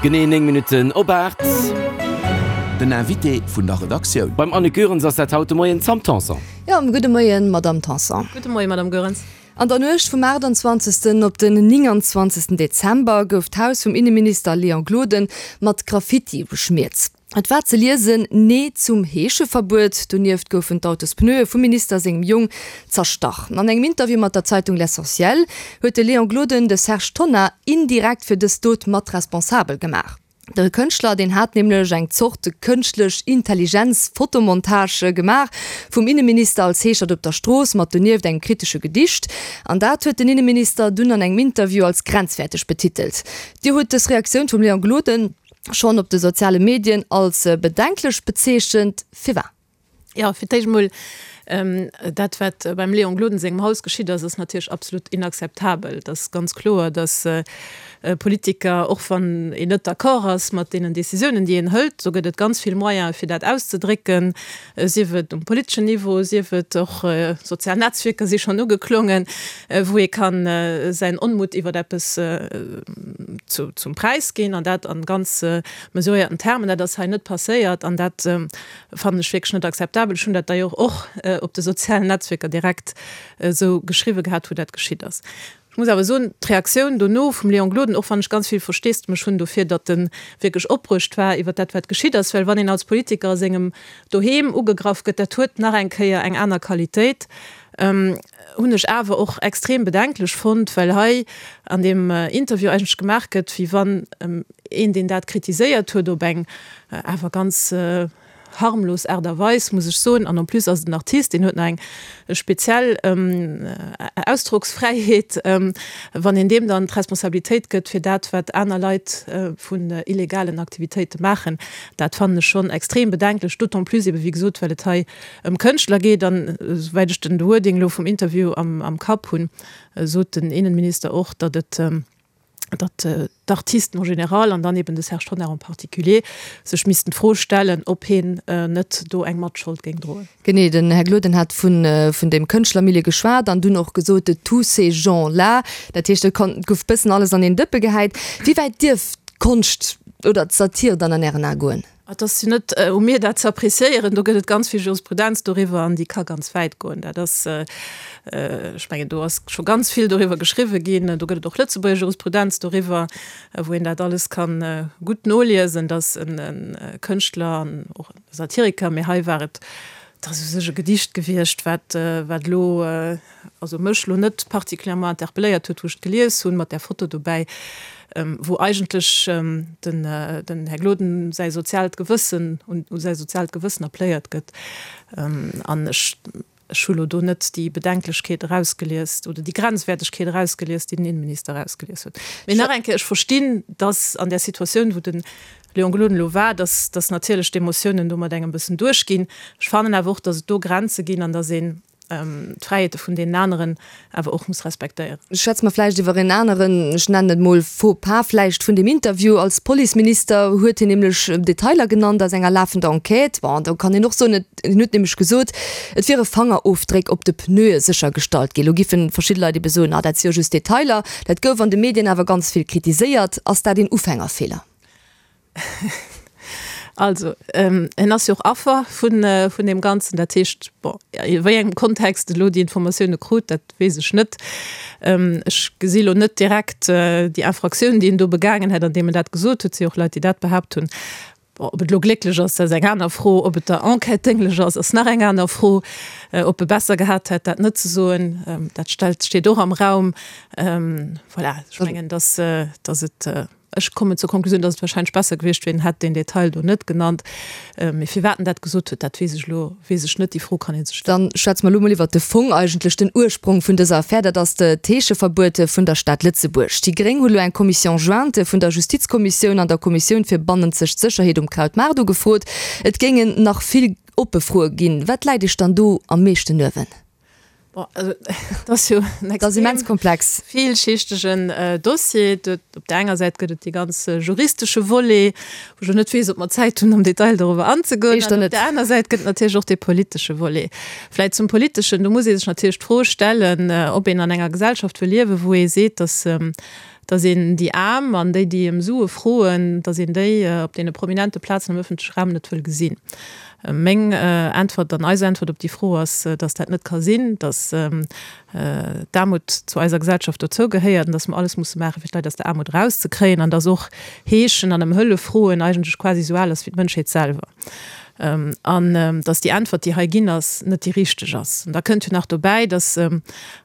Genee 9 Minutten op 8. Den Invité vun der Redaktioun. Beim Annick Goerens ass dat haut de Moien d'Sam Tanson. Jo, gudde Moien, Madamm Tanson. Gudde Moien, Madamm Goerens. An der Nuecht vum 28. op den 29. Dezember gouf d'Haus vum Inneminister Léon Gloden mat Graffiti beschmiert. Et war ze liesen, Nee zum Heescheverbuet. Donieft goufen d'Autospneue vum Minister sengem Jong zerstach. An engem Interview mat der Zeitung L'Essentiel huet de Léon Gloden de Serge Tonnar indirekt fir dës Dot mat responsabel gemaach. De Kënschtler, deen hat nämlech eng Zort kënschtlech Intelligenz-Fotomontage gemaach vum Inneminister als Heeschert op der Strooss, mat donieft engem kritesche Gedicht. An dat huet den Inneminister dunn an engem Interview als grenzwäerteg betitelt. Dir hutt dës Reaktioun vum Léon Gloden schonn op de soziale Medien als bedenklech bezeechent. Firwat? Jo, fir d'éischt emol, dat wat beim Léon Gloden sengem Haus geschitt ass, ass natierlech absolut inakzeptabel. Et ass ganz kloer, datt Politiker, och wann een net d'accord ass mat deenen Décisiounen, déi een hëlt, do gëtt et ganz vill Moyene fir dat auszedrécken, sief et um politeschen Niveau, sief et och sozial Netzwierker si schonn ugeklongen, wou ee ka säin Onmutt iwwer eppes zum Präis ginn an dat an ganz mesuréierten Termen. Dat ass hei net passéiert an dat fannen ech wierklech net akzeptabel. Ech hunn dat d'ailleurs och op de sozialen Netzwierker direkt esou geschriwwe gehat, wou dat geschitt ass. Ech muss awer soen, d'Reaktioun dono vum Léon Gloden, och wann ech ganz vill Versteesdemech hunn dofir, datt e wierklech opbruecht war iwwer dat, wat geschitt ass, well wann een als Politiker a sengem Doheem ugegraff gëtt, dat huet nach eng Kéier eng aner Qualitéit, hunn ech awer och extrem bedenklech fonnt, well hei an deem Interview eigentlech gemaach gëtt, wéi wann een, deen dat kritiséiert huet, op eng awer ganz harmlos Aart a Weis, muss ech soen, an en plus ass et en Artist, deen huet nach eng speziell Ausdrocksfräiheet, wann een deem dann d'Responsabilitéit gëtt fir dat, wat aner Leit vun illegalen Aktivitéite maachen, dat fannen ech schonn extrem bedenklech, d'autant plus ebe wéi gesot, well et hei ëm Kënschtler geet an, esouwäit ech den Wording elo vum Interview am Kapp hunn, sot den Innenminister och, datt et, datt d'Artisten en général an dann eben de Serge Tonnar en particulier sech missten d'Fro stellen, ob heen net do eng Matschold géing droen. Genee, den Här Gloden hat vun dem Kënschtlermilieu geschwat an dunn och gesot, de tous ces gens-là. Dat heescht, et gouf bëssen alles an een Dëppe gehäit. Wéi wäit dierf d'Konscht oder d'Satir dann an Ären Ae goen? Et ass jo net u mir dat ze appréciéieren, do gëtt et ganz vill Jurisprudenz doriwwer an déi ka ganz wäit goen. Dat ass, ech mengen do ass scho ganz vill doriwwer geschriwwe ginn, do gëtt et och Lëtzebuerger Jurisprudenz doriwwer, wou een dat alles ka gutt noliesen, datt e Kënschtler an och e Satiriker, mee hei war et, et ass u sech e Gedicht gewiescht, wat wat elo, also mech lo net particulièrement interpelléiert huet, wou ech et gelies hunn, mat där Foto dobäi, wou eigentlech den den Här Gloden säi soziaalt Gewëssen, un u säi soziaalt Gewëssen appléiert gëtt. An ech ech hu lo do net déi Bedenklechkeet erausgelies oder déi Grenzwäertegkeet erausgelies, déi den Innenminister erausgelies huet. Mee nach eng Kéier, ech verstinn, dass an där Situatioun, wou de Léon Gloden elo war, dass dass natierlech d'Emotiounen do mat engem bëssen duerchginn. Ech fannen awer och, dass et do Grenze ginn an dass een, d'Fräiheete vun deenen aneren awer och muss respektéieren. Schwätze mer vläicht iwwer en aneren, ech nennen et mol Faux pas vläicht vun dem Interview. Als Policeminister huet hien nämlech Detailer genannt aus enger lafender Enquête. Bon, do kann een och soen, et, hien huet nämlech gesot, et wiere Fangerofdréck op de Pneue séchergestallt ginn. Elo giffen verschidde Leit ebe soen, ah dat si jo just Detailer. Dat gouf an de Medien awer ganz vill kritiséiert. Ass dat een Ufängerfeeler? Also, en ass jo och Affer vun, vun deem Ganzen. Dat heescht, bon, a wéi engem Kontext e lo déi Informatioune krut, dat weess ech net. Ech gesi lo net direkt déi Infraktioun, déi en do begaangen hätt, andeem en dat gesot huet. Et si och Leit, déi dat behaapt hunn. Bon, ob et lo glécklech ass, dat ass eng aner Fro. Ob et der Enquête dénglech ass, ass nach eng aner Fro. Ob e besser gehat hätt, dat net ze soen, dat stellt, steet och am Raum. Voilà, ech mengen, dass, dass et. Ech kommen zur Konklusioun, dass et wahrscheinlech besser gewiescht wier, en hätt deen Detail do net genannt. Mee firwat en dat gesot huet, dat weess ech elo weess ech net. Déi Fro kann ee sech stellen. Dann schwätze mer elo mol iwwert de Fong eigentlech, den Ursprong vun dëser Affär. Dat ass d'Heescheverbuet vun der Stad Lëtzebuerg. Déi Gréng hu lo eng Commission jointe vun der Justizkommissioun an der Kommissioun fir bannenzeg Sécherheet um Krautmaart ugefrot. Et géingen nach vill oppe Froe ginn. Wat läit Iech dann do am meeschten uewen? Bon, also, dat ass jo en Dat ass immens komplex. villschichtegen Dossier. Op där enger Säit gëtt et dee ganz juristesche Volet, wou ech elo net weess, ob mer Zäit hunn, am Detail doriwwer anzegoen. Éischter An op net. där aner Säit gëtt et natierlech och dee politesche Volet. Vläicht zum politeschen, do muss ee sech natierlech d'Fro stellen, ob een an enger Gesellschaft wëll liewen, wou ee seet, datt. Datt een déi Aarm an déi, déi ëm Sue froen, datt een déi op deene prominente Plazen am ëffentleche Raum net wëll gesinn. Meng Äntwert an eis Äntwert op déi Fro ass, datt dat net ka sinn, datt d'Aarmut zu eiser Gesellschaft dozou gehéiert an datt mer alles musse maachen, fir d'Leit aus der Aarmut erauszekréien an datt och Heeschen an ëm Hëllef froen eigentlech quasi esou al ass wéi d'Mënschheet selwer an datt déi Äntwert, déi hei ginn ass, net déi richteg ass. An da kënnt jo nach dobäi, datt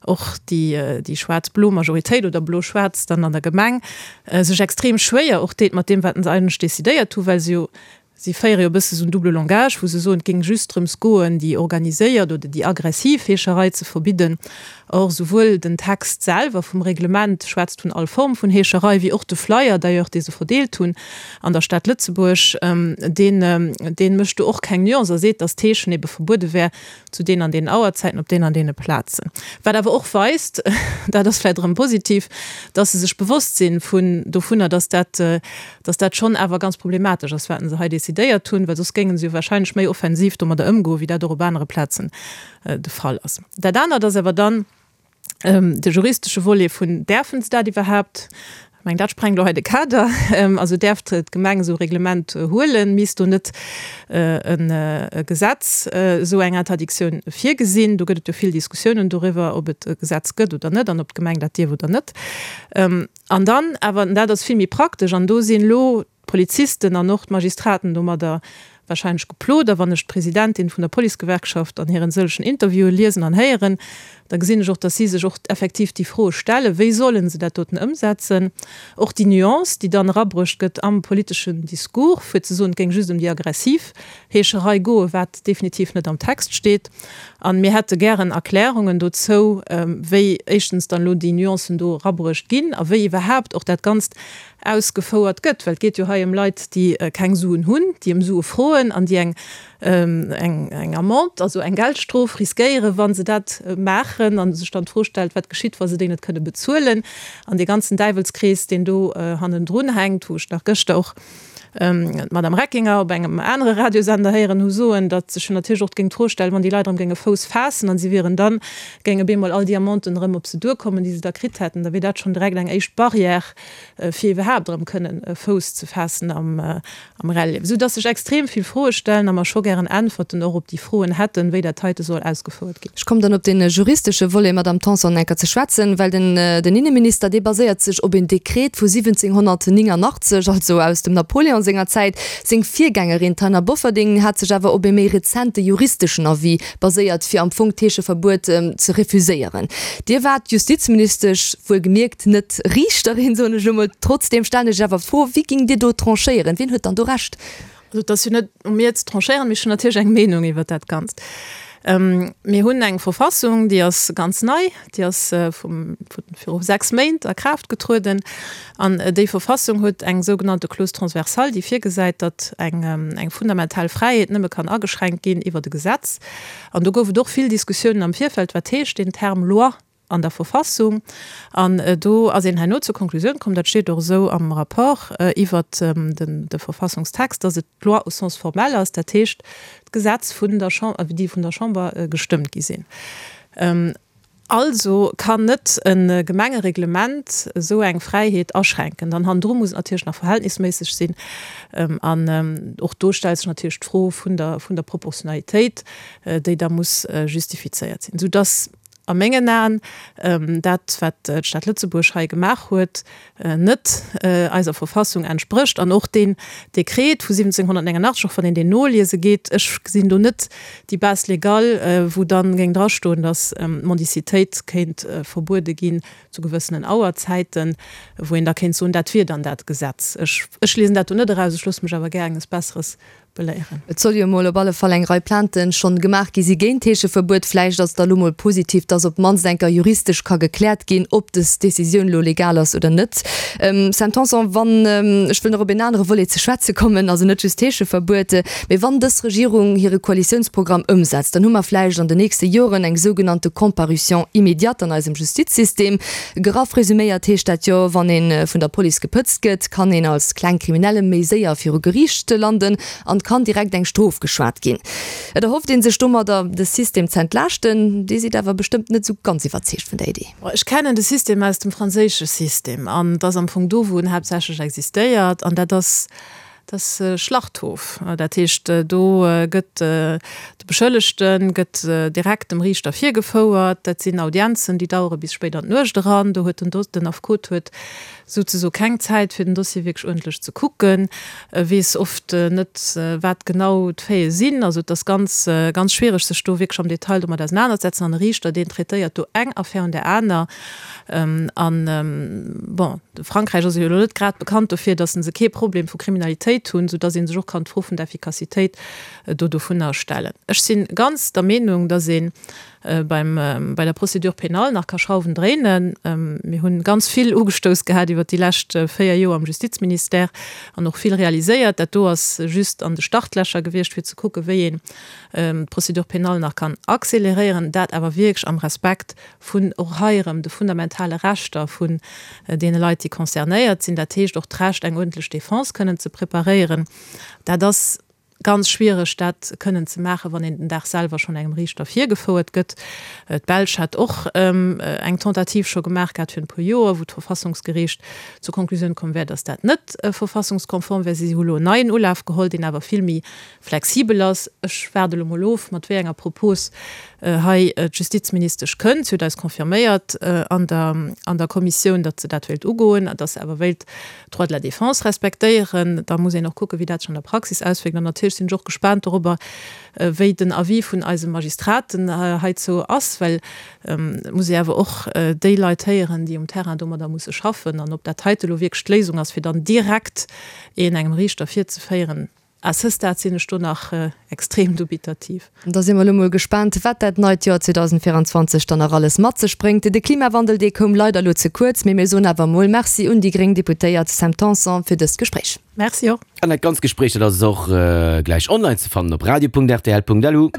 och déi schwaarz-blo Majoritéit oder blo-schwaarz dann an der Gemeng sech extrem schwéier och deet mat deem, wat se eigentlech decidéiert hu, well se jo Si féiere jo e bësse sou en double langage, wou se soen, et géing just drëms goen, déi organiséiert oder déi aggressiv Heescherei ze verbidden. Or, souwuel den Text selwer vum Reglement schwätzt vun all Form vun Heescherei, wéi och de Flyer d'ailleurs, dee se verdeelt hunn an der Stad Lëtzebuerg, deen, dee mécht do och keng Nuance a seet, datt d'Heeschen ebe verbuede wär zu deenen an deenen Auerzäiten op deenen an deene Plazen. Wat awer och weist, dat ass vläicht erëm positiv, dass se sech bewosst si vun dovunner, dass dat, dass dat schonn awer ganz problematesch ass, wat se hei decidéiert hunn, well soss géinge se jo wahrscheinlech méi offensiv domadder ëmgoen, wéi dat och op anere Plazen de Fall ass. Dat anert ass awer dann, De juristesche Volet vun, Däerfen se dat iwwerhaapt? Ech mengen, dat sprengt elo hei de Kader. Also däerf d'Gemeng esou e Reglement huelen? Misst do net e Gesetz esou eng Interdictioun virgesinn? Do gëtt et jo vill Diskussiounen doriwwer, ob et e Gesetz gëtt oder net an ob d'Gemeng dat dierf oder net. An dann awer, an dat ass vill méi praktesch, an do sinn elo d'Polizisten an och d'Magistraten domadder wahrscheinlech geplot. A wann ech d'Presidentin vun der Policegewerkschaft an hiren sëllegen Interviewen liesen an héieren, da gesinn ech och, dass si sech och effektiv déi Froe stellen, wéi solle se dat doten ëmsetzen. Och déi Nuance, déi dann erabruecht gëtt am politeschen Discours, fir ze soen, et géing just ëm déi aggressiv Heescherei goen, wat definitiv net am Text steet. A mir hätte gären Erklärungen dozou, wéi éischtens dann elo déi Nuancen do erabruecht ginn a wéi iwwerhaapt och dat Ganzt ausgefouert gëtt, well et geet jo hei ëm Leit, déi keng Suen hunn, déi ëm Sue froen an déi eng eng Amende, also eng Geldstrof riskéieren, wa se dat maachen, a sech dann d'Fro stellt, wat geschitt, wa se déi net kënne bezuelen, an dee ganzen Däiwelskrees, deen do hannendrun hänkt, wou ech nach gëschter och d'Madame Reckinger op engem anere Radiosender héieren hu soen, datt sech jo natierlech och géing d'Fro stellen, wann déi Leit erëm géinge Fouss faassen an si wieren dann, géinge bemol all déi Amenden erëm op se duerkommen, déi se da kritt hätten, da wier dat schonn direkt eng éischt Barrière, fir iwwerhaapt erëm kënnen Fouss ze faassen am Reliewen, esou dass sech extrem vill Froe stellen a mer scho gären Äntwerten och op déi Froen hätten, wéi dat heite soll ausgefouert ginn. Ech kommen dann op dee juristesche Volet, Madamm Tanson, enker ze schwätzen, well den den Inneminister, dee baséiert sech op een Dekret vu 1789, also aus dem Napoléon senger Zäit. Seng Virgängerin, d'Taina Bofferding, hat sech awer op ee méi rezente juristeschen Avis baséiert, fir am Fong d'Heescheverbuet ze refuséieren. Dir waart Justizministesch, wuelgemierkt net Riichterin, soen ech elo mol. Trotzdeem stellen ech awer d'Fro, Wéi géingt Dir do tranchéieren? Wien huet dann do Recht? Also et ass jo net u mir ze tranchéieren, mee ech hunn natierlech eng Meenung iwwert dat Ganzt. Mir hunn eng Verfassung, déi ass ganz nei, déi ass vum, viru 6 Méint a Kraaft getrueden. An déi Verfassung huet eng sougenannte Clause transversale, déi virgesäit, datt eng, eng fundamental Fräiheet nëmme kann ageschränkt ginn iwwert e Gesetz. An do gouf et och vill Diskussiounen am Virfeld, wat heescht deen Term Loi an der Verfassung. An do ass een herno zur Konklusioun komm, dat steet och esou am Rapport iwwert de Verfassungstext, datt et d'Loi au sens formel ass, dat heescht d'Gesetz vun der Chamber, déi vun der Chamber gestëmmt gi sinn. Also kann net e Gemengereglement esou eng Fräiheet aschränken. Dann hannendru muss et natierlech nach verhältnisméisseg sinn. An och do stellt sech natierlech d'Fro vun der, vun der Proportionalitéit, déi da muss justifizéiert sinn, soudass a mengen Aen dat, wat d'Stad Lëtzebuerg hei gemaach huet, net eiser Verfassung entsprécht an och deen Dekret vu 1789, och wann een deen noliese geet, ech gesinn do net déi Base légale, wou dann géing drastoen, datt d'Mendicitéit kéint verbuede ginn zu gewëssenen Auerzäiten, wou een da kéint soen, dat wier dann dat Gesetz. Ech, ech liesen dat do net eraus, ech loosse mech awer gär enges Besseres beléieren. Et soll jo emol op alle Fall eng Rei Plainten schonn gemaach gi si géint d'Heescheverbuet. Vläicht ass et da lo mol positiv, dass op d'mannst eng Kéier juristesch ka gekläert ginn, ob des Decisioun lo legal ass oder net. Sam Tanson, wann, ech wëll nach op een anere Volet ze schwätze kommen, also net just d'Heescheverbuet, mee wann dës Regierung hire Koalitiounsprogramm ëmsetzt, dann hu mer vläicht an den nächste Joren eng sougenannte Comparution immédiate an eisem Justizsystem. Graff resuméiert heescht dat jo, wann ee vun der Police gepëtzt gëtt, kann een als kleng Kriminelle méi séier viru Geriicht landen an. kann direkt eng Strof geschwat ginn. Et erhofft ee sech domadder, de System z'entlaaschten. Dir sidd awer bestëmmt net esou ganz iwwerzeegt vun der Idee. Ech kennen de System aus dem franséische System an et ass am Fong do, wou en haaptsächlech existéiert an dat ass, dat ass Schlachthof. Dat heescht, do gëtt de Beschëllegte gëtt direkt dem Riichter virgefouert. Dat sinn Audienzen, déi dauere bis spéit an d'Nuecht eran. Do huet den, den Affekot huet souzesoe keng Zäit fir den Dossier wierklech uerdentlech ze kucken, weess oft net wat genau d'Faite sinn. Also et ass ganz, ganz schwiereg sech do wierklech am Detail domat ausenanerzesetzen an e Riichter deen traitéiert do eng Affär un där aner. An bon, Frankräich ass jo elo net grad bekannt dofir, datt se kee Problem vu Kriminalitéit hunn, soudatt ee sech och kann d'Fro vun der Effikassitéit do dovunner stellen. Ech si ganz der Meenung, datt ee beim, bei der Procédure pénale nach ka Schrauwen dréinen. Mir hunn ganz vill ugestouss gehat iwwert déi lescht 4 Joer am Justizministère an och vill realiséiert. Dat do ass just an de Startlächer gewiescht, fir ze kucken, wéi een d'Procédure pénale nach kann accéléréieren, dat awer wierklech am Respekt vun och hei erëm de fundamentale Rechter vun deene Leit, déi concernéiert sinn, dat heescht och d'Recht, eng uerdentlech Défense kënnen ze preparéieren. Dat ass Ganz schwiereg dat kënnen ze maachen, wann een den Dag selwer schonn engem Riichter virgefouert gëtt. D'Belsch hat och eng Tentative scho gemaach gehat virun e puer Joer, wou d'Verfassungsgeriicht zur Konklusioun komm wär, datt dat net verfassungskonform wär. Si hu lo en neien Ulaf geholl, deen awer vill méi flexibel ass. Ech waarde lo mol of, mat wéi enger Propos hei d'Justizministesch kënnt. Si huet eis confirméiert an der an der Kommissioun, datt se dat wéilt ugoen a datt se awer wéilt Droit de la défense respektéieren. Da muss een och kucken, wéi dat sech an der Praxis auswierkt. An natierlech sinn ech och gespaant dorobber, wéi den Avis vun eise Magistraten heizou ass, well et muss ee awer och déi Leit héieren, déi um Terrain domadder musse schaffen. An ob dat heite elo wierklech d'Léisung ass, fir dann direkt een engem Riichter virzeféieren, À ce stade sinn ech do nach extrem dubitativ. Da si mer elo mol gespaant, wat dat neit Joer 2024 dann nach alles mat sech bréngt. De Klimawandel, dee koum leider elo ze kuerz, mee mir soen awer mol Merci un déi gréng Deputéiert Sam Tanson fir dëst Gespréich. Merci och. An dat ganzt Gespréich, dat ass och gläich online ze fannen op radio.rtl.lu.